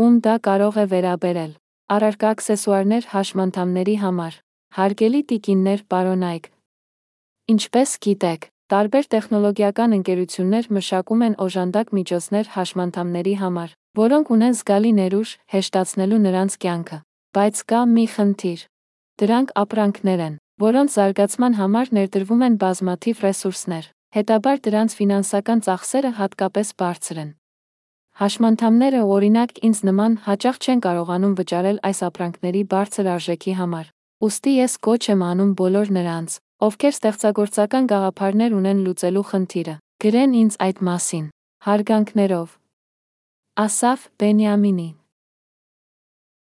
ում դա կարող է վերաբերել։ Առարկա աքսեսուարներ հաշմանդամների համար։ Հարգելի տիկիններ, պարոն Այգ։ Ինչպես գիտեք, տարբեր տեխնոլոգիական ընկերություններ մշակում են օժանդակ միջոցներ հաշմանդամների համար, որոնք ունեն զգալի ներուժ, հեշտացնելու նրանց կյանքը։ Բայց կա մի խնդիր։ Դրանք ապրանքներ են, որոնց զարգացման համար ներդրվում են բազմաթիվ ռեսուրսներ, հետաբար դրանց ֆինանսական ծախսերը հատկապես բարձր են։ Հաշմանդամները, օրինակ, ինձ նման, հաճախ չեն կարողանում վճարել այս ապրանքների բարձր արժեքի համար։ Ուստի ես կոչ եմ անում բոլոր նրանց, ովքեր ստեղծագործական գաղափարներ ունեն լուծելու խնդիրը, գրեն ինձ այդ մասին։ Հարգանքներով, Ասաֆ Բենյամինի։